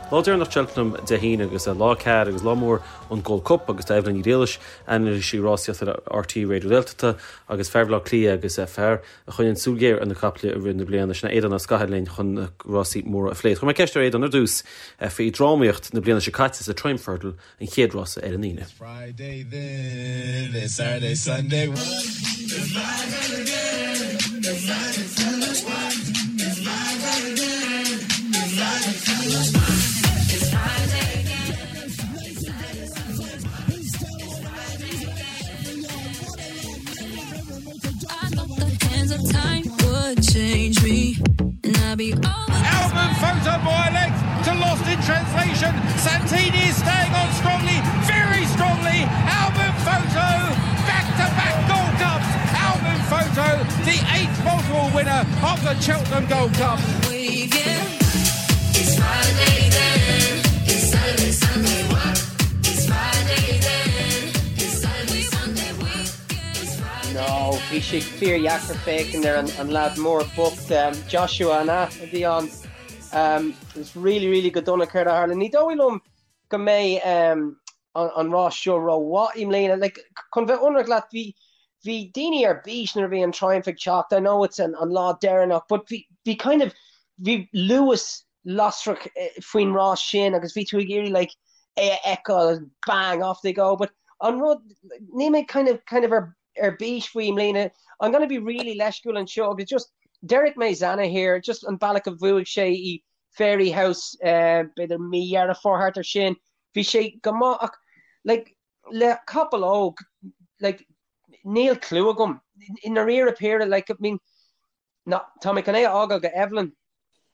Lá deireanach Cheltenham Dé hAoine agus lá 4 agus lá mór an Gold Cup agus tá Evelyn Ní Ghriallais, anailísí rásaíochta le RTÉ Raidió na Gaeltachta agus fear Bhaile Átha Cliath agus fear a choinníonn súil ghéar ar na caiple i rith na bliana, sin é Aodán Ó Scathail linn chun na rásaí móra a phlé. Chuir mé ceist ar Aodán ar dtús faoi drámaíocht na bliana seo caite sa Triumph Hurdle, an chéad rása ar an Aoine. Friday then, it's Saturday, Sunday. Albin Photo by a length to Lost in Translation. Santini is staying on strongly, very strongly. Albin Photo, back to back Gold Cups. Albin Photo, the eighth multiple winner of the Cheltenham Gold Cup. It's Friday then, it's Saturday, Sunday, what? It's Friday then, it's Saturday, Sunday, weekend. No, bhí sé fíordheacair féachaint ar an leaid mór bocht, Joshua an ea a bhí ann. It was really, really go dona céard a tharla. Ní dóigh liom go mbeidh an rás seo rómhaith i mbliana. Like, chun bheith ionraic leat, bhí bhí daoine ar bís nuair a bhí an Triumph ag teacht. I know it's an an lá deireanach, but bhí bhí kind of bhí luas lasrach faoin rás sin agus bhí tú ag iarraidh like é a fheiceáil bang off they go. But an rud níl mé kind of kind of ar ar bís faoi i mbliana. I'm gonna be really leisciúil anseo agus just déarfaidh mé Zanahiyr, just an bealach a bhuaigh sé i Fairyhouse b'fhéidir mí Dheireadh Fómhair thart ar sin. Bhí sé go maith ach like le capall óg like níl clue agam. I ndáiríre píre like I mean ná tá mé chun é a fhágáil go Evelyn.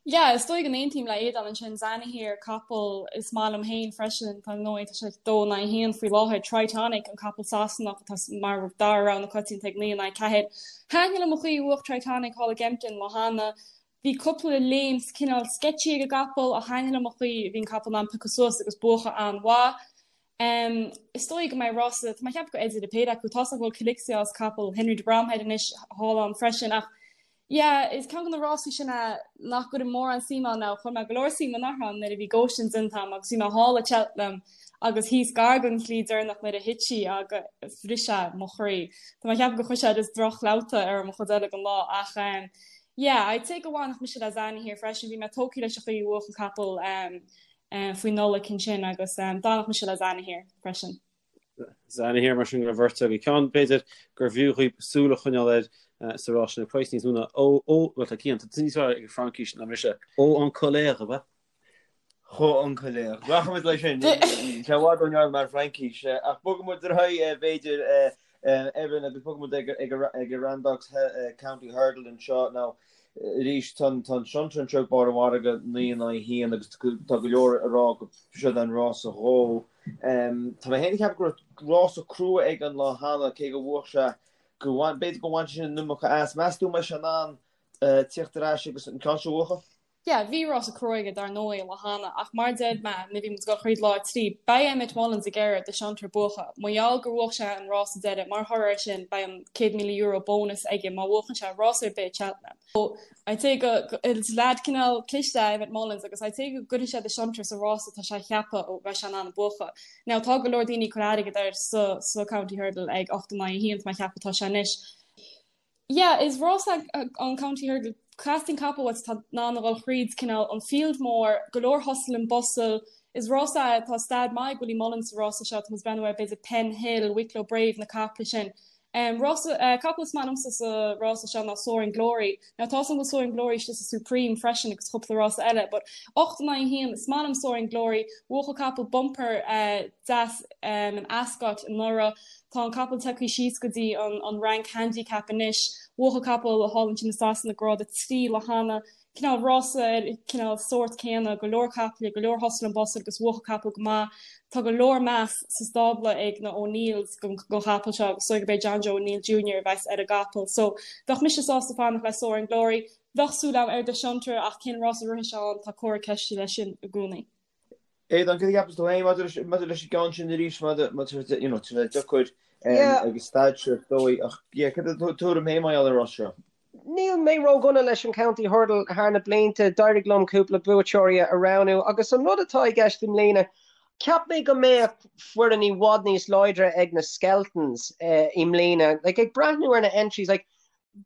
Yeah, is dóigh go n-aontaím le Aodán ansin, Zanahiyr, capall is maith liom féin freisin, tá ndóigh, tá sé 2 in aghaidh 1 faoi láthair, Tritonic, an capall Sasanach atá mar dara rogha na coitianta ag 9 in aghaidh 4. Thaitin liom an chaoi a bhuaigh Tritonic thall i gKempton an lá cheana, Bhí cúpla léim cineál sketchy ag an gcapall ach thaitin liom an chaoi a bhí an capall in ann piocadh suas agus buachan an-mhaith. Is dóigh go mbeidh rása, tá mé ag ceapadh go Eddie de péire acu, tá's agam go bhfuil Quilixios, capall Henry de Bromhead anois thall ann freisin ach yeah, is ceann de na rásaí sin é nach gcuirim mórán suim ann now, chuir mé go leor suim anuraidh ann nuair a bhí Goshen déanta agam agus bhí mé thall i Cheltenham agus thíos gar don shlí deireanach nuair a thit sí agus bhris sé mo chroí. Tá mé ag ceapadh gur chuir sé just droch-chlabhta ar mo chuid eile den lá ach Yeah, I'd say go bhfanfadh mise le Zanahiyr freisin, bhí mé tógtha leis an chaoi a bhuaigh an capall faoi Nollaig ansin agus d'fhanfadh mise le Zanahiyr freisin. Zanahiyr mar sin don bheirt agaibh. Ceann b'fhéidir gur bhfiú dhaoibh súil a choinneáil air sa rás sin ag praghas níos mó ná ó, ó, bhuel tá Cian, tá tú níos fearr ag an Fraincis ná mise, Haut En Couleurs, ab ea? Haut En Couleurs. Rachaimid leis sin. Sé i bhfad ó neart mar Fraincis. Ach bogfaidh muid ar aghaidh, b'fhéidir, Evan, agus bogfaidh muid ag an Randox County Hurdle anseo. Now, arís, tá an Shunter anseo ag barr an mhargaidh, 9 in aghaidh 1, agus tá go leor ag rá go siod an rása dhó. Tá mé féin ag ceapadh go raibh rása crua aige an lá cheana, cé go bhuaigh sé, go b'fhéidir go bhain sé sin an iomarca as. Meas tú an mbeidh sé in ann tíocht ar ais agus an ceann seo a bhuachan? Yeah, bhí rása crua aige dar ndóigh an lá cheana ach mar a deir mé nuair a bhí muid ag dul thríd lá 3, beidh Emmet Mullins ag iarraidh The Shunter buachan. Mar gheall gur bhuach sé an rása deiridh, mar thoradh air sin beidh an €100,000 bónas aige má bhuachann sé rás ar bith i Cheltenham. So, I'd say go, is leaid cineál cliste é Emmet Mullins agus I'd say go gcuirfidh sé The Shunter sa rása atá sé a cheapadh go mbeidh sé in ann a buachan. Now tá go leor daoine ag cur airgead air sa, sa County Hurdle ag 8 in aghaidh 1 tá mé ag ceapadh atá sé anois. Yeah, is rás é an County Hurdle. Teastaíonn capall uait atá in ann a dhul thríd cineál an field mór, go leor hustle and bustle. Is rás é, tá staid maith ag Willie Mullins sa rása seo, tá muid ag breathnú ar b'fhéidir Penhill, Wicklow Brave, na caiple sin. Rása, capall is maith liomsa sa rása seo ná Soaring Glory. Now tá a fhios agam go bhfuil Soaring Glory istigh sa Supreme freisin agus cúpla rása eile, but 8 in aghaidh 1, is maith liom Soaring Glory. Bhuaigh an capall bumper deas in Ascot anuraidh. Tá an capall tagtha síos go dtí an rank handicap anois. Bhuaigh an capall thall ansin i Sasana grád 3 lá cheana. Cineál rása ar cineál sórt céanna, go leor caiple, go leor hustle and bustle agus bhuaigh an capall go maith. Tá go leor meas sa stábla ag na O'Neills don chapall seo agus is dóigh gurb é John Joe O'Neill Junior a bheas ar an gcapall. So bheadh mise sásta fanacht le Soaring Glory. Bheadh súil agam ar The Shunter ach cén rás a rithfidh sé ann, tá comhartha ceiste leis sin i gcónaí. Aodán, cad a cheapas tú féin maidir leis an gceann sin arís, maidir you know, tá sé deacair ag an staid seo is dóigh, ach yeah, cad é do thuairim féin mar gheall ar an rás seo? Níl mé ródhona leis an County Hurdle thar na blianta, d'éirigh liom cúpla buaiteoirí a roghnú agus an rud atá i gceist i mbliana, cheap mé go mbeadh foireann i bhfad níos láidre ag na Skeltons i mbliana. Like, ag breathnú ar na entries, like,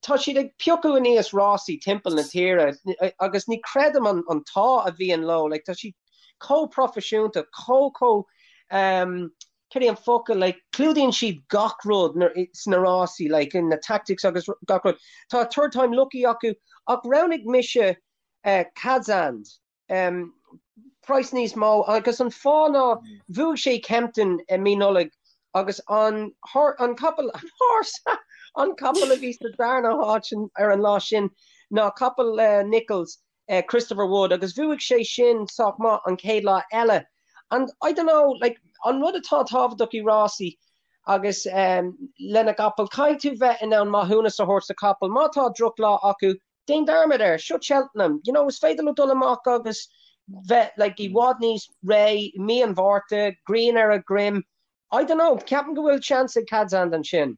tá siad ag piocadh aníos rásaí timpeall na tíre agus ní chreidim an an t-ádh a bhíonn leo, like, tá siad chomh proifisiúnta, chomh chomh um, cad é an focal, like, clúdaíonn siad gach rud sna rásaí, like, na tactics agus gach rud. Tá Third Time Lucky acu ach roghnaigh mise eh, Cadzand, um, price níos mó agus an fáth ná bhuaigh sé Kempton i mí Nollag agus an, an capall, an horse, an capall a bhí sa darna háit ar an lá sin ná capall le Nicholls Christopher Wood agus bhuaigh sé sin sách maith an chéad lá eile and I don't know like an rud atá tábhachtach i rásaí agus um, lena gcapall caithfidh tú bheith in ann maithiúnas a thabhairt do chapall má tá drochlá acu déan dearmad air seo Cheltenham you know is féidir leo dul amach agus bheith like i bhfad níos réidh i mí an Mhárta grian ar a dhroim I don't know ceapaim go bhfuil seans ag Cadzand ansin.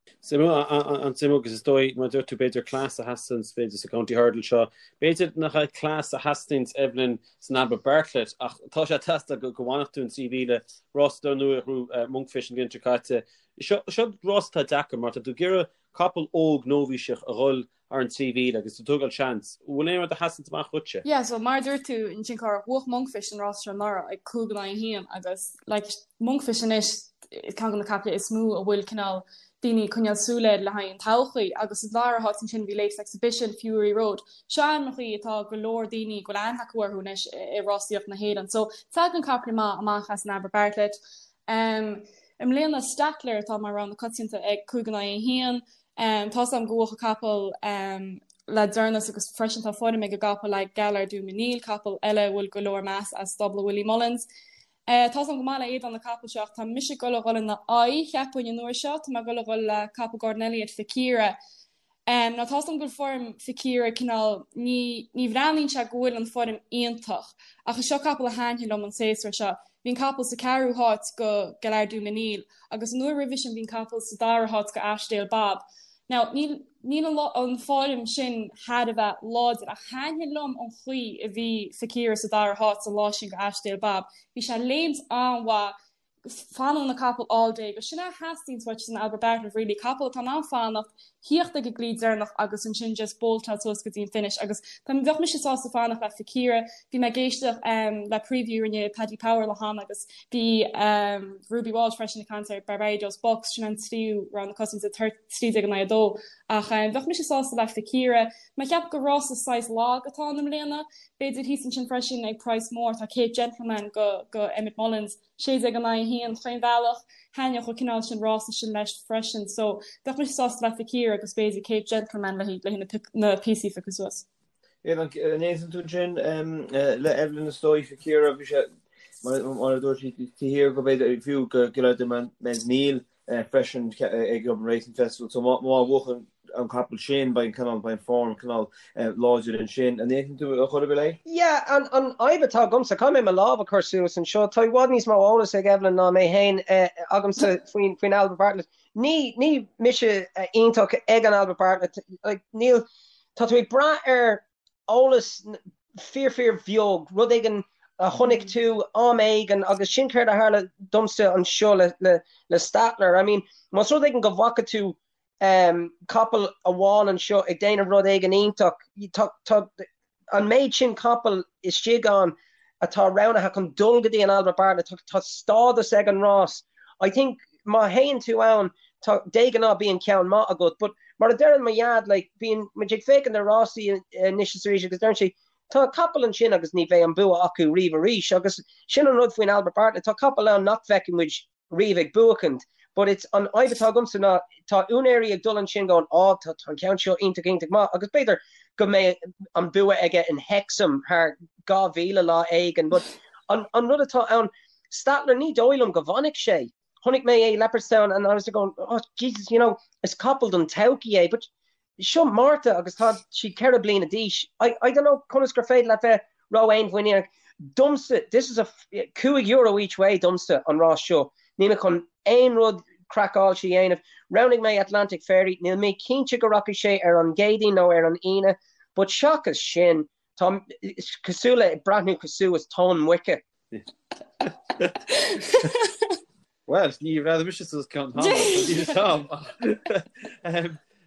An-suimiúil agus is dóigh, mar a dúirt tú, b'fhéidir cleas a theastaíonns, b'fhéidir sa County Hurdle seo. B'fhéidir nach é cleas a theastaíonns, Evelyn, san Albert Bartlett ach tá sé ag teastáil go bhfanfadh tú an 3,000 rás dar ndóigh a ghnóthaigh Monkfish an bhliain seo caite. Seo rás atá deacair mar tá tú ag iarraidh capall óg nóibhíseach a dhul thar an 3,000 agus tú ag tógáil seans. An bhfuil aon rud a sheasanns amach dhuitse? Yeah, so mar a dúirt tú ansin Cárthach, bhuach Monkfish an rás seo anuraidh ag 5 in aghaidh 1 agus like Monkfish anois ceann de na caiple is mó a bhfuil cineál daoine ag coinneáil súil air le haghaidh an todhchaí agus sa dara háit ansin bhí Latest Exhibition, Fury Road. Seo ainmneachaí atá go leor daoine go bhfuil aithne acu orthu anois i rásaíocht na hÉireann. So tagann caiple maith amach as an Albert Bartlett. Um, I mbliana Stattler atá mar rogha na coitianta ag 5 in aghaidh 1. Tá's agam go bhuach an capall le deireanas agus freisin tá foirm ag an gcapall le Gaillard Du Mesnil, capall eile a bhfuil go leor meas as stábla Willie Mullins. Tá's agam go maith le Aodán na capaill seo ach tá mise ag dul a dhul ina aghaidh, cheapfainn, an uair seo. Tá mé ag dul a dhul le capall Gordon Elliott, Fakiera. Now tá's agam go bhfuil foirm Fakiera cineál, ní, ní bhreathnaíonn sé go bhfuil an foirm iontach ach is seo capall a thaitníonn liom an séasúr seo. Bhí an capall sa ceathrú háit go Gaillard Du Mesnil agus an uair roimhe sin bhí an capall sa dara háit go Ashdale Bob. Now níl níl an an foirm sin thar a bheith láidir ach thaitnigh liom an chaoi a bhí Fakiera sa dara háit an lá sin go Ashdale Bob. Bhí sé ag léimt an-mhaith fanann an capall all day agus sin é a theastaíonns uait san Albert Bartlett really, capall atá in ann fanacht, thíocht ag an gclaí deireanach agus ansin just boltáil suas go dtí an finish agus tá bheadh mise sásta fanacht le Fakiera. Bhí mé ag éisteacht um, le preview a rinne Paddy Power le hana agus bhí um, Ruby Walsh freisin ag caint ar Barbados Bucks sin an tríú rogha na coitianta 13 in aghaidh 2 ach um, bheadh mise sásta le Fakiera. Mé ag ceapadh gur rása saghas lag atá ann i mbliana. B'fhéidir thíos ansin freisin ag price mór tá Cape Gentleman go, go Emmet Mullins 16 in aghaidh 1 chaon bhealach, thaitneodh an cineál sin rása sin leis freisin so bheadh mise sásta le Fakiera agus b'fhéidir Cape Gentleman le haghaidh na píosaí a phiocadh suas. An aontaíonn tú ansin le Evelyn is dóigh Fakiera bhí sé mar a dúirt sí taobh thiar go b'fhéidir fiú go Gaillard Du Mesnil freisin ag Dublin Racing Festival so má bhuachann an capall sin beidh an cineál beidh an form cineál láidir ansin. An aontaíonn tú a chor ar bith léi? Yeah, an an fhadhb atá agamsa, caithfidh mé mo lámh a chur suas anseo, tá i bhfad níos mó eolas ag Evelyn ná mé féin agamsa faoin faoin Albert Bartlett. Ní ní mise iontach ag an Albert Bartlett, like níl, tá tú ag brath ar eolas fíor fíor bheag, rud éigin a chonaic tú am éigin agus sin céard a tharla domsa anseo le le le Stattler. I mean, más rud éigin go bhfaca tú um, capall amháin anseo ag déanamh rud éigin iontach, tá tá an méid sin capall istigh ann atá roghnaithe chun dul go dtí an Albert Bartlett, tá tá stádas ag an rás. I think má théann tú ann tá de ghnáth bíonn ceann maith agat but mar a deireann mo dhaid like bíonn muid ag féachaint ar rásaí anois is arís agus deireann sé tá capall ansin agus ní bheidh an bua acu riamh arís agus sin an rud faoin Albert Bartlett tá capall ann nach bhfeicfidh muid riamh ag buachaint but it's an fhadhb atá agamsa ná tá úinéirí ag dul ansin going á tá an ceann seo iontach iontach maith agus b'fhéidir go mbeidh an bua aige in Hexham thar 2000 lá éigin but an, an rud atá ann Stattler ní dóigh liom go bhfanfaidh sé Chonaic mé é Leopardstown and I was going, oh Jesus, you know, is capall don todhchaí é, but seo Márta agus tá sí 4 bliana d'aois. I, I don't know conas gur féidir leat bheith ró-fhéinmhuiníneach. Domsa, this is a €5 each way domsa an rás seo. Níl mé chun aon rud. craiceáilte a dhéanamh. Roghnaigh mé Atlantic Fairy, níl mé cinnte go rachaidh sé ar an gCéadaoin nó ar an Aoine, but seachas sin, tá cosúil le breathnú cosúil is tóin muice. Bhuel, ní bhreathnaigh mise suas ceann tamall,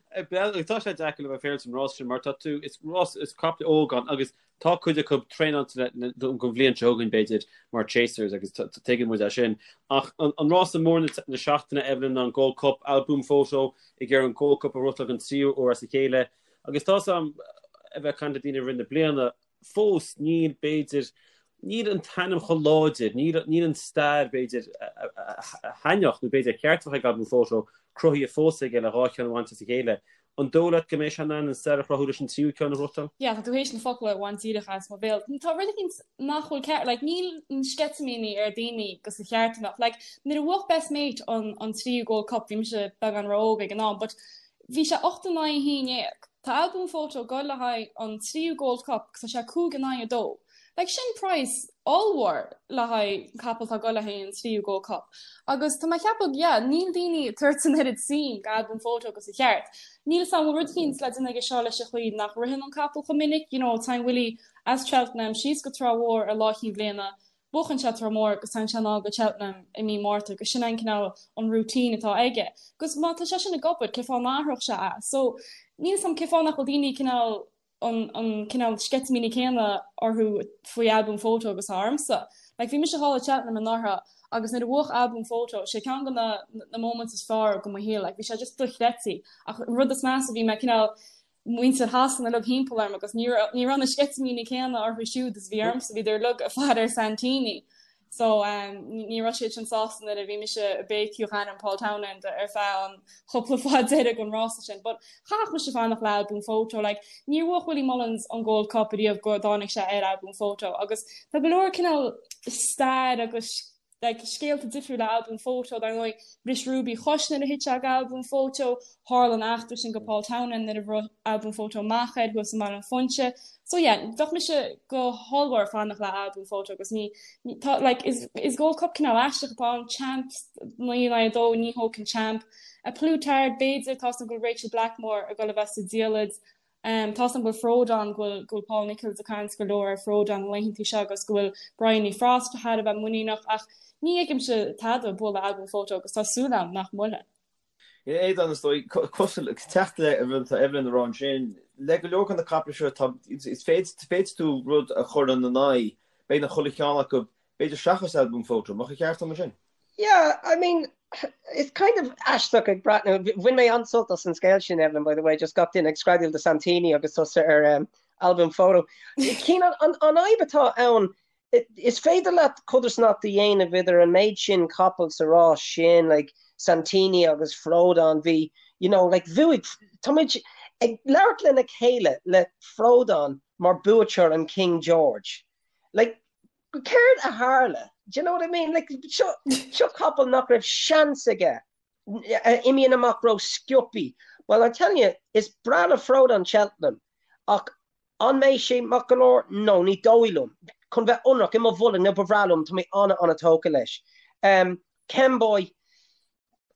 Tá sé deacair le bheith féaráilte an rás sin mar tá tú, is rás, is caiple óg ann agus tá cuid acu traenáilte don bhliain seo chugainn b'fhéidir mar chasers agus tuigeann muid é sin. Ach an rása mór na seachtaine, Evelyn, ná an Gold Cup, Al Boum Photo ag iarraidh an Gold Cup a ghnóthachtáil don tríú huair as a chéile agus tá 's agam a bheith ag caint le daoine i rith na bliana, fós níl, b'fhéidir, níl an t-ainm chomh láidir, níl, níl an stair, b'fhéidir, a thaitneodh nó b'fhéidir ar cheart a bheith ag Al Boum Photo cruthaithe fós aige le dhá cheann a bhaint as a chéile. An dóigh leat go mbeidh sé in ann an stair a chruthú leis an tríú ceann a ghnóthachtáil? Yeah, tá tú théis na focail a bhaint díreach as mo bhéal. Tá rud éicint nach bhfuil ceart, like, níl na sceitimíní ar daoine gus a cheart a bheadh. Like, nuair a bhuach Best Mate an, an tríú Gold Cup, bhí mise beagán ró-óg ag an am, but Bhí sé 8 in aghaidh 11. Tá Al Boum Photo ag goil le haghaidh an tríú Gold Cup agus tá sé 5 in aghaidh 2. Like sin praghas ollmhór le haghaidh capall atá ag goil le haghaidh an tríú Gold Cup. Agus tá mé ag ceapadh, yeah, níl daoine ag tabhairt an oiread suim go Al Boum Photo agus a cheart. Níl 'fhios a'm bhfuil rud eicínt le déanamh aige seo leis an chaoi nach ritheann an capall chomh minic, you know, téann Willie as Cheltenham síos go Trá Mhór ar Lá Chinn Bhliana, Buachann sé Trá Mhór agus téann sé anall go Cheltenham i mí Márta agus sin é an cineál an routine atá aige. Agus má tá sé sin ag obair, cé fáth a n-athródh sé é? So, níl 'fhios a'm cé fáth nach bhfuil daoine cineál an an cineál sceitimíní céanna orthu faoi Al Boum Photo agus atá ormsa. Like bhí mise thall i Cheltenham anuraidh agus nuair a bhuach Al Boum Photo, sé ceann de na na moments is fearr go mo shaol, like bhí sé just dochreidte. Ach an rud is measa bhí mé cineál muintir Shasana uilig thimpeall orm agus ní raibh na sceitimíní céanna orthu siúd is a bhí ormsa, bhíodar uilig ag faire ar Santini. So ní raibh siad sin sásta nuair a bhí mise ag béicíoch ainm Paul Townend ar feadh an chúpla fad deiridh den rása sin. But chaithfeadh mise fanacht le Al Boum Photo. Like, níor bhuach Willie Mullins an Gold Cup ariamh go dtáinig sé ar Al Boum Photo agus tá go leor cineál stair agus like, scéalta difriúla le Al Boum Photo, dar ndóigh, bhris Ruby a chois nuair a thit sé go Al Boum Photo, tharla an eachtra sin go Paul Townend nuair a bhruigh Al Boum Photo amach air thuas i mBaile an Phúinse. So yeah, bheadh mise go hollmhór ag fanacht le Al Boum Photo agus ní, ní, tá, like, is, is Gold Cup cineál aisteach atá ann, champ, 9 in aghaidh 2, ní thógfainn champ. A Plus Tard, b'fhéidir, tá 's agam go bhfuil Rachel Blackmore ag dul a bheith sa diallait, Tá 's agam go bhfuil Frodon, go bhfuil, go bhfuil Paul Nicholls ag caint go leor ar Frodon na laethantaí seo agus go bhfuil Bryony Frost thar a bheith muiníneach ach ní fheicimse tada bualadh Al Boum Photo agus tá súil agam nach mbuailfidh. Aodán, is dóigh, cosúil, teacht le an rud atá Evelyn a rá ansin, le go leor de na caiple seo tá, is féidir, féadfaidh tú rud a chur ina n-aghaidh, beagnach chuile cheann acu, b'fhéidir seachas Al Boum Photo, mbeadh an ceart agam ansin? Yeah, I mean, it's kind of aisteach ag breathnú, bhain mé an-sult as an scéal sin, Evelyn, by the way, just gach duine ag screadaíl do Santini agus tusa ar um, Al Boum Photo. Cian, an, an, an fhadhb atá ann, is féidir leat codarsnacht a dhéanamh idir an méid sin capall sa rás sin, like Santini agus Frodon, bhí, you know, like bhuaigh, tá muid ag labhairt lena chéile le Frodon mar buaiteoir an King George. Like, Céard a tharla? Do you know what I mean? Like, seo, seo capall nach raibh seans aige. Imíonn amach ró-sciobthaí. Well, I'm telling you, is breá le Frodon Cheltenham, ach an mbeidh sé maith go leor? No, ní dóigh liom. Chun bheith ionraic, i mo bholg, nó ba bhreá liom, tá mé an-an-tógtha leis. Um, Kemboy,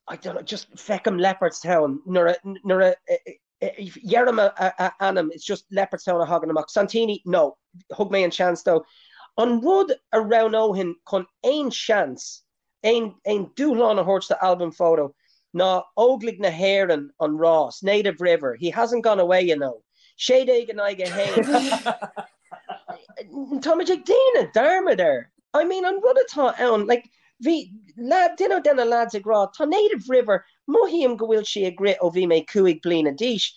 I don't know, just feicim Leopardstown nuair a, nuair a, Deirim a ainm, it's just Leopardstown a thagann amach. Santini, no, thug mé an seans dó. An rud a roghnóinn chun aon seans, aon dúshlán a thabhairt do Al Boum Photo ná Óglaigh na hÉireann an rás, Native River, he hasn't gone away, you know. 16 in aghaidh 1. Táimid ag déanamh dearmad air. I mean, an rud atá ann, like, bhí lad, duine de na lads ag rá, tá Native River, mothaím go bhfuil sí ag rith ó bhí mé 5 bliana d'aois.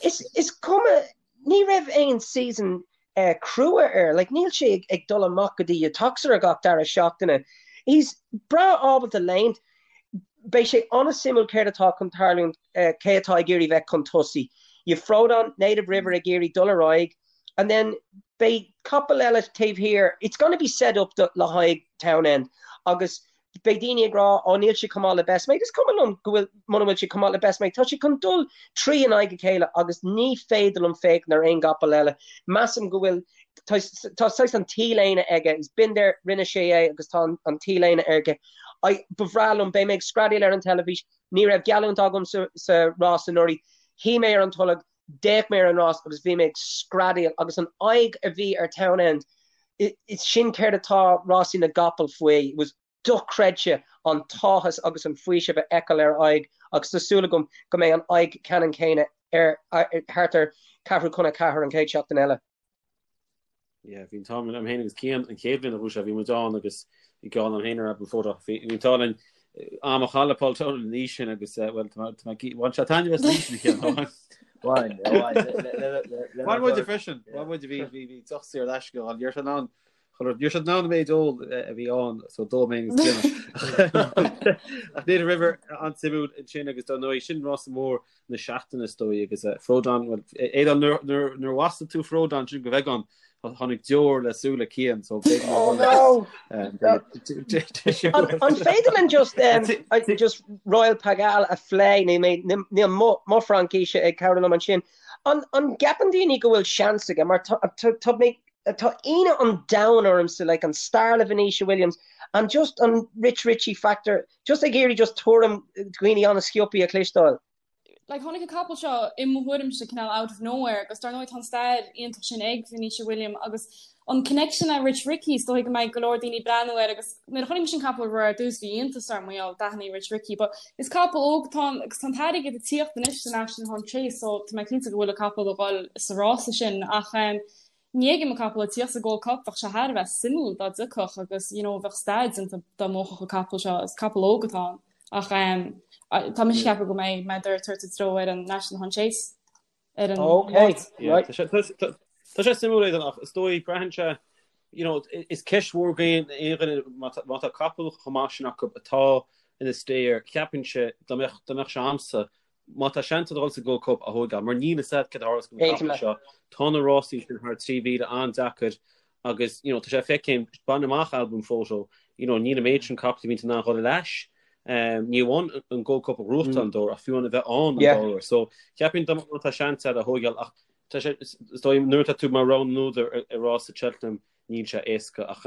Is, is cuma, ní raibh aon season eh, crua air, like, níl sé ag, ag dul amach go dtí Uttoxeter gach dara seachtaine. He's breá ábalta léimt. Beidh sé an-suimiúil céard atá chun tarlúint, eh, cé atá ag iarraidh bheith chun tosaigh. You've Frodon, Native River ag iarraidh dul ar aghaidh, and then beidh capall eile taobh thiar, it's gonna be set up do, le haghaidh Townend agus beidh daoine ag rá ó níl sé chomh maith le Best Mate, is cuma liom go bhfuil, muna bhfuil sé chomh maith le Best Mate, tá sé chun dul trí in aghaidh a chéile agus ní féidir liom féachaint ar aon gcapall eile. Measaim go bhfuil. Tá saghas an t-léine aige, he's been there, rinne sé é agus tá an t-léine aige. I, ba bhreá liom, beidh mé ag screadaíl ar an teilifís, ní raibh geallúint agam sa, sa rás anuraidh, shuigh mé ar an tolg, d'fhéach mé ar an rás agus bhí mé ag screadaíl agus an aghaidh a bhí ar Townend, is sin céard atá rásaí na gcapall faoi, it was dochreidte an t-áthas agus an faoiseamh a fheiceáil ar a aghaidh agus tá súil agam go mbeidh an aghaidh ceannann céanna air thart ar ceathrú chun a ceathair an chéad seachtain eile. Yeah, bhí an t-ádh liom féin agus Cian an chéad bhliain a bhuaigh sé, bhí muid ann agus bhí geall liom féin ar Album Photo. Bhí an t-ádh linn am a chaitheamh le Paul Townend an oíche sin agus eh, bhuel, tá mé bhain sé taitneamh as an oíche sin a Chian. Bhain, bhain. Bhain muide freisin, bhain muide bhí bhí bhí deoch saor in aisce ann, ní raibh sé in ann Ní raibh siad in ann an méid óil a bhí ann so d'ól mé agus Cian. Ach Native River an-suimiúil ansin agus dar ndóigh sin rása mór na seachtaine is dóigh agus Frodon, well Aodán nuair a mhaslaigh tú Frodon sin go bheagán tháinig deor le súile Cian so b'fhéidir Oh no! An féidir linn just just Royale Pagaille a phlé níl mo Fhraincis ag cabhrú liom ansin. An gceapann daoine go bhfuil seans aige mar tá mé Tá ionadh an domhain ormsa, like an stair le Venetia Williams and just an Rich Ricci factor, just ag iarraidh just tuairim dhaoine an-sciobthaí a chloisteáil. Like tháinig an capall seo i mo thuairimse cineál out of nowhere agus dar ndóigh tá an stair iontach sin ag Venetia William agus an connection le Rich Ricci is dóigh go mbeidh go leor daoine ag breathnú air agus nuair a chonaic mise an capall ar dtús bhí iontas orm mar gheall d'aithnigh Rich Ricci but is capall óg atá ann agus tá an t-airgead ag tíocht anois sa National Hunt Chase so tá mé cinnte go bhfuil an capall ag dul sa rása sin ach um, Ní fheicim an capall ag tíocht sa Gold Cup, bheadh sé thar a bheith suimiúil dá dtiocfadh agus you know bheadh stair déanta dá mbuafadh an capall seo, is capall óg atá ann ach ehm tá mise ag ceapadh go mbeidh mé ag tabhairt a dtreo ar an National Hunt Chase ar an Ok, Máirt. Yeah, right. tá sé, tá, tá, tá sé suimiúil Aidan ach is dóigh braitheann sé you know, is ceist mhór do aon dhuine má tá, má tá capall chomh maith sin acu atá ina stair, ceapfainnse dá mbeadh, dá mbeadh sé a'msa Má tá seans ag dul sa Gold Cup a thóigeáil, mar níl fhios a'd céard a tharlós don Aontaím capall leat. seo, tá na rásaí sin thar 3,000 an-deacair agus you know tá sé feicthe, bain amach Album Photo, you know níl an méid sin capall a bhíonn in ann dhul ar ais, ní amháin an Gold Cup a ghnóthachtáil an dá uair ach fiú amháin a bheith ann an Yeah. dá uair. So cheapfainn dá má tá seans a'd a thóigeáil ach tá sé, is dóigh nuair atá tú mar rogha na n-údar ar rás Cheltenham Níl sé éasca ach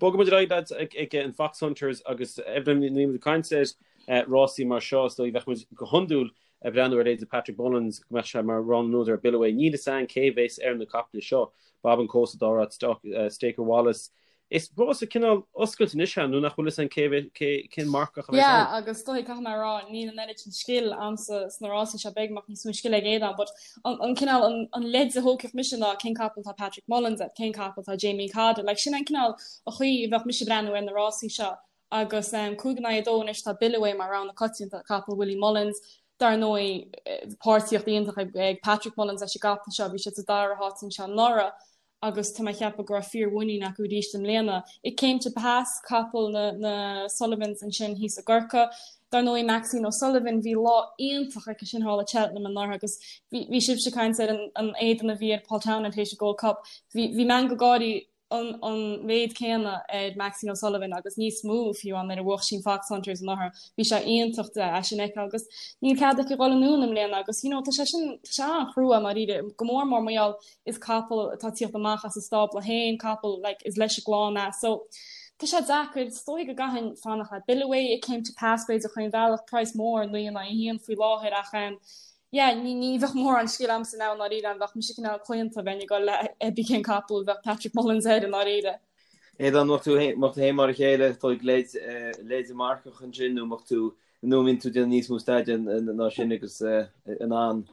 bogfaidh muid ar aghaidh lads ag an Foxhunters agus Evelyn níl muid ag caint ar rásaí mar seo is dóigh bheadh muid go hiondúil ag breathnú ar leithéidí Patrick Mullins go mbeadh sé mar rogha na n-údar ar Billaway. Níl fhios a'inn cé bhéas ar na caiple seo, Bob and Co sa dara háit, Staker Wallace. Is rása cineál oscailte anois é nó nach bhfuil fhios a'inn cé cé cén marcach a bheas Yeah ann. agus is dóigh caithfidh mé a rá níl an oiread sin scil a'msa sna rásaí seo beidh amach níos mó scil ag Aodán but an an cineál an an leid a thógfadh mise ná cén capall atá Patrick Mullins air, cén capall atá Jamie Codd air, like sin an cineál a chaoi a bheadh mise ag breathnú ar na rásaí seo agus um, 5 in aghaidh 2 anois tá Billaway mar rogha na coitianta, capall Willie Mullins, dar ndóigh páirtíocht iontach ag, ag Patrick Mullins leis an gcapall seo, bhí siad sa dara háit anseo anuraidh agus tá mé ag ceapadh go raibh fíor-mhuinín acu arís i mbliana. It Came to Pass, capall na, na Sullivans ansin thíos i gCorcaigh. Dar ndóigh Maxine O'Sullivan, bhí lá iontach aici sin thall i Cheltenham anuraidh agus bhí, bhí sibhse ag caint ar an, an éadan a bhí ar Paul Townend théis an Gold Cup. Bhí, bhí meangadh gáirí an, an méid céanna ar Maxine O'Sullivan agus níos mó fiú amháin nuair a bhuach sí an Foxhunters anuraidh. Bhí sé iontach de é sin a fheiceáil agus níl cead aici dhul anonn i mbliana agus you know tá sé sin, tá sé an-chrua i ndáiríre, go mór mór mar gheall is capall atá ag tíocht amach as a stábla féin, capall like is leis an gclann é. So tá sé deacair, is dóigh go gcaithfinn fanacht le Billaway, It Came to Pass b'fhéidir chaon bhealach, praghas mór 9 in aghaidh 1 faoi láthair ach em yeah ní ní bheadh mórán scil a'msa now i ndáiríre an bheadh mise cineál claonta bheinn ag dul le cibé cén capall a bheadh Patrick Mullins air i ndáiríre. Aodán, mbeadh tú mbeadh tú féin mar a chéile, dóigh leid leid marcach ansin nó mbeadh tú nó an mbíonn tú ag déanamh níos mó staidéir ná sin agus in ann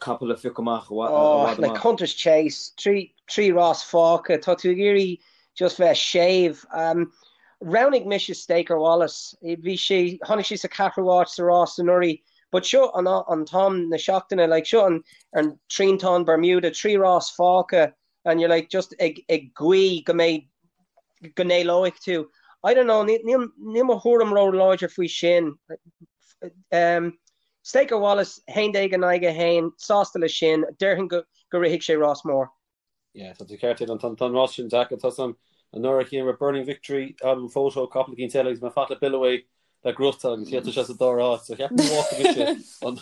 capall a phiocadh amach i bhfad Oh, like amach. Hunters Chase, 3 rás fágtha, tá tú ag iarraidh just bheith séimh. Um, roghnaigh mise Staker Wallace, bhí sé, tháinig sé sa ceathrú áit sa rás anuraidh, but seo an, an t-am na seachtaine, like seo an, an triantán Bermuda, 3 rás fágtha and you're like just ag, ag guí go mbeidh, go n-éalóidh tú. I don't know, níl, níl mo thuairim ró-láidir faoi sin. Um, Staker Wallace, 11 in aghaidh 1, sásta leis sin, déarfainn go rithfidh sé rás mór. Yeah, tá tú ceart, Aidan, tá an rás sin deacair. Tá san anuraidh chéanna raibh Burning Victory, Album Photo, capall eicínt eile agus mé fanacht le Billaway. Le gnóthachtáil agus tá sé sa dara háit so cheapfainn go bhfágfaidh mise an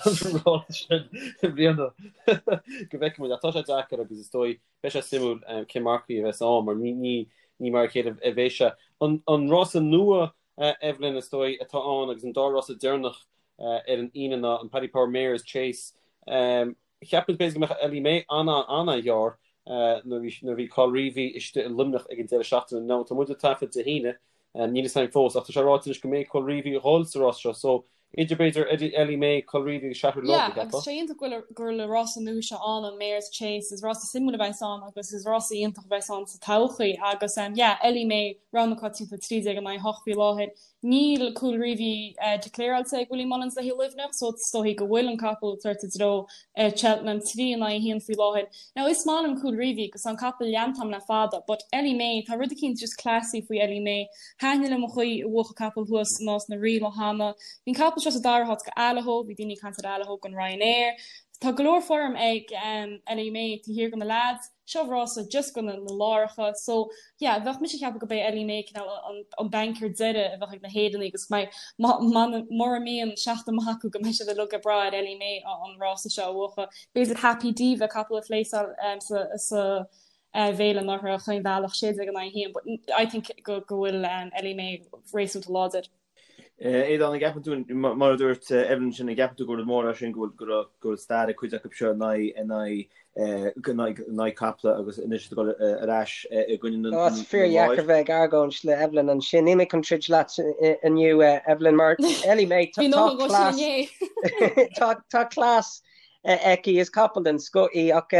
rás sin i mbliana go bhfeicfidh muid ach tá sé deacair agus is dóigh beidh sé suimiúil cén mar chaoi a bheas ann mar ní ní mar a chéile a bheidh sé. An rása nua Evelyn is dóigh atá ann agus an dá rása deireanach ar an Aoine ná an Paddy Power Mares Chase. Cheap muid b'fhéidir go mbeadh Ellie May an-an-an-ghearr nuair a bhí Colreevy istigh i Luimneach ag an deireadh seachtaine. Now tá muid ag taifead Dé hAoine, níl fhios againn fós ach tá sé ráite anois go mbeidh Colreevy ag dhul sa rás seo so idir b'fhéidir Ellie May, Colreevy agus Shattered Love, Yeah, a cheapfá? agus sé iontach go bhfuil go bhfuil an rása nua seo ann, an Mares Chase, is rása suimiúil a bheas ann agus is rása iontach a bheas ann sa todhchaí agus yeah, Ellie May, rogha na coitianta 13 in aghaidh 8 faoi láthair. Níl Colreevy declaráilte ag Willie Mullins le haghaidh Luimneach so is dóichí go bhfuil an capall ag tabhairt i dtreo Cheltenham 3 in aghaidh 1 faoi láthair. Now is maith liom Colreevy agus tá an capall leanta agam le fada but Ellie May, tá rud eicínt just classy faoi Ellie May. Thaitin liom an chaoi a bhuach an capall thuas i Nás na Rí lá cheana. Bhí an capall seo sa dara háit go Allaho, bhí daoine ag caint ar Allaho don Ryanair. Tá go leor form ag Ellie May taobh thiar de na leaids. Seo rása just go na láracha so yeah bheadh mise ag ceapadh go beidh Ellie May cineál an an banker deiridh a bheadh ag na hÉireannaigh agus go mbeidh mura mbíonn seachtain maith acu go mbeidh siad uilig ag brath ar Ellie May an rása seo a bhuachan. B'fhéidir Happy Diva capall a phléasáil sa sa bhféile anuraidh chaon bhealach 16 in aghaidh 1 but I think go go bhfuil Ellie May réasúnta láidir. Aodán, an gceapann tú, mar a dúirt Evelyn sin, an gceapann tú gur rud mór é sin go bhfuil go bhfuil stair ag cuid acu seo in aghaidh in aghaidh in aghaidh in aghaidh caiple agus anois ag dul ar ais i gcoinne na Tá sé fíordheacair bheith ag argóint le Evelyn ansin. Níl mé chun troid leat inniu, Evelyn, mar Ellie May, tá cleas tá cleas aici, is capall den scoth í ach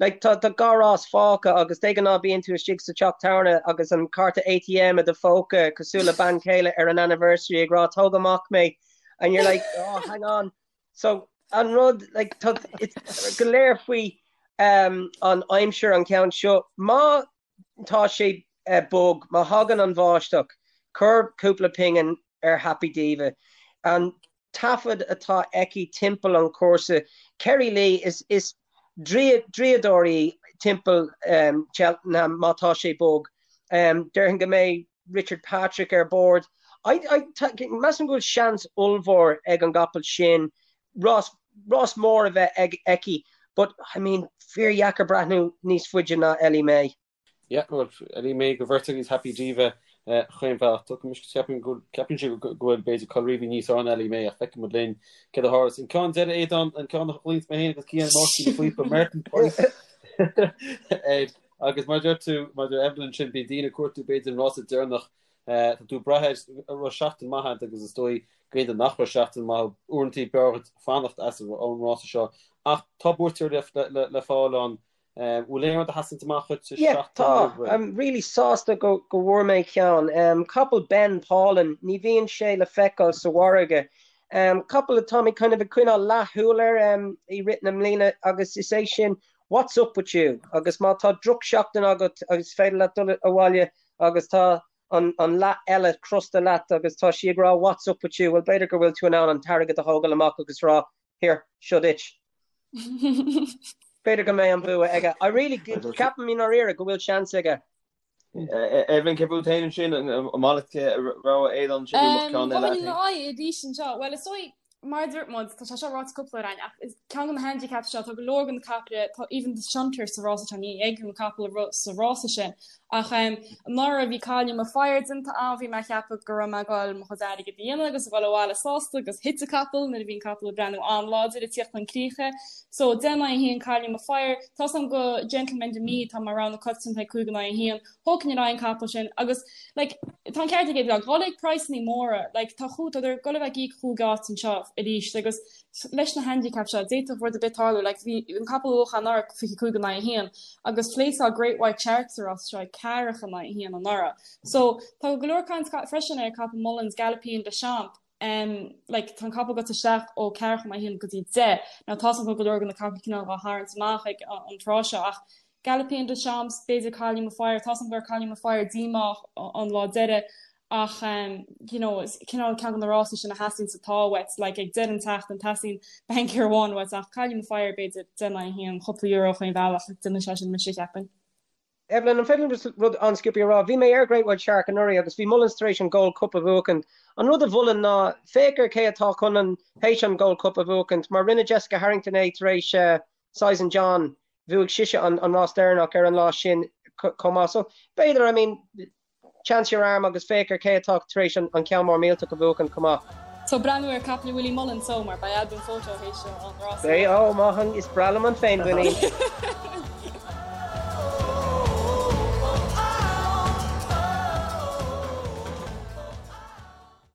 like tá tá dhá rás fágtha agus de ghnáth bíonn tú istigh sa teach tábhairne agus an cárta ATM i do phóca cosúil le bean chéile ar an anniversary ag rá tóg amach mé and you're like oh hang on so an rud like tá it's go léir faoi um, an aimsir an ceann seo má tá sé uh, bog má thagann an bháisteach cuir cúpla pingin ar Happy Diva an taifead atá aici timpeall an chúrsa. Kerry Lee, is is draíodóir í timpeall Cheltenham má tá sé bog. Déarfainn go mbeidh Richard Patrick ar bord. I I measaim go bhfuil seans ollmhór ag an gcapall sin rás rás mór a bheith ag aici but I mean fíordheacair breathnú níos faide ná Ellie May. Yeah, bhuel, Ellie May don bheirt agus Happy Diva chaon bhealach. Ceapaim go ceapann sé go bhfuil b'fhéidir Colreevy níos fearr ná Ellie May ach feicfidh muid linn céard a tharlós. An ceann deiridh Aodán, an ceann a ghlaonns mé féin agus Cian Máirtín na Fuipe, Merton Price. Agus mar deir tú, mar deir Evelyn sin, bíonn daoine ag cuartú b'fhéidir an rása deireanach. Tá tú ag brath air, an raibh seachtain maith agat agus is dóigh go aon duine nach raibh seachtain maith uaireanta b'fhearr dhuit fanacht as an rása seo. Ach tá buaiteoir le le fáil ann Bhfuil aon rud a sheasann amach dhuit sa Yeah, seachtain tá. roimh ré? I'm really sásta go go bhfuair mé ceann. Um, capall Ben Pauline, ní bhíonn sé le feiceáil sa mhargadh. Um, capall atá mé kind of ag coinneáil leathshúil air um, i rith na mbliana agus is é sin What's up with you? Agus má tá drochsheachtain agat agus is féidir leat dul abhaile agus tá an, an leath eile crosta leat agus tá sí ag rá What's up with you? Well, b'fhéidir go bhfuil tú in ann an t-airgead a thógáil amach agus rá Here, seo duit. B'fhéidir go mbeidh an bua aige. I really, ceapaim i ndáiríre go bhfuil seans aige. Evelyn, cé fút féin ansin, an maith leat rogha Aodáin ansin nó an mbeadh ceann eile agat féin? Aghaidh arís anseo. Bhuel, is dóigh, mar a dúirt muid, tá sé seo ráite cúpla uair againn, ach is ceann de na handicaps seo, tá go leor de na caiple, tá even The Shunter sa rása seo, ní fheicim an capall ag rith sa rása sin. Ach anuraidh bhí Cailliú Mo Fire déanta agam, bhí mé ag ceapadh go raibh mé ag dul mo chuid airgid a dhéanamh agus a dhul abhaile sásta agus thit an capall nuair a bhí an capall ag breathnú an-láidir ag tíocht chun críche. So 10 in aghaidh 1 Cailliú Mo Fire, tá 's agam go Gentleman De Mee atá mar rogha na coitianta ag 5 in aghaidh 1, thógfainn ar aghaidh an capall sin agus like tá an ceart ag Aodán, dhul ag praghsanna móra, like tá chú, tá ag dul a bheith ag íoc chúig áit anseo arís agus leis na handicaps seo, d'fhéadfadh rud ar bith tarlú, like bhí an capall a bhuaigh anuraidh 25 in aghaidh 1 agus phléasáil Great White Shark sa rás seo ag ceathracha in aghaidh 1 anuraidh. So tá go leor caint freisin ar capall Mullins, Galopin Des Champs, um, like tá an capall gaibhte isteach ó ceathracha in aghaidh 1 go dtí 10. Now tá 's agam go leor de na capaill cineál á tharraingt amach ag an tráth seo ach Galopin Des Champs, b'fhéidir Cailliú Mo Fire, tá 's agam go raibh Cailliú Mo Fire díomách an lá deiridh ach you know is cineál ceann de na rásaí sin a theastaíonn sa t-ádh uait, like ag deireadh an tseachtain teastaíonn banker amháin uait ach Cailliú Mo Fire b'fhéidir 10 in aghaidh 1, cúpla euro chaon bhealach, déanfaidh sé sin mise cheapfainn. Evelyn, an féidir liom rud an-sciobtha a rá? Bhí mé ar Great White Shark anuraidh agus bhí Mullins tar éis an Gold Cup a bhuachaint. An rud a mholfainn ná féach ar cé atá chun an théis an Gold Cup a bhuachaint mar rinne Jessica Harrington é tar éis Sizen John, bhuaigh sise an rás deireanach ar an lá sin chomh maith. So, b'fhéidir, I mean, chance your arm agus féach ar cé atá tar éis an ceann mór millteach a bhuachan chomh maith. So breathnú ar caiple Willie Mullins so mar beidh Al Boum Photo théis an rás. Beidh, ó, maith an, is breá liom an féinmhuinín.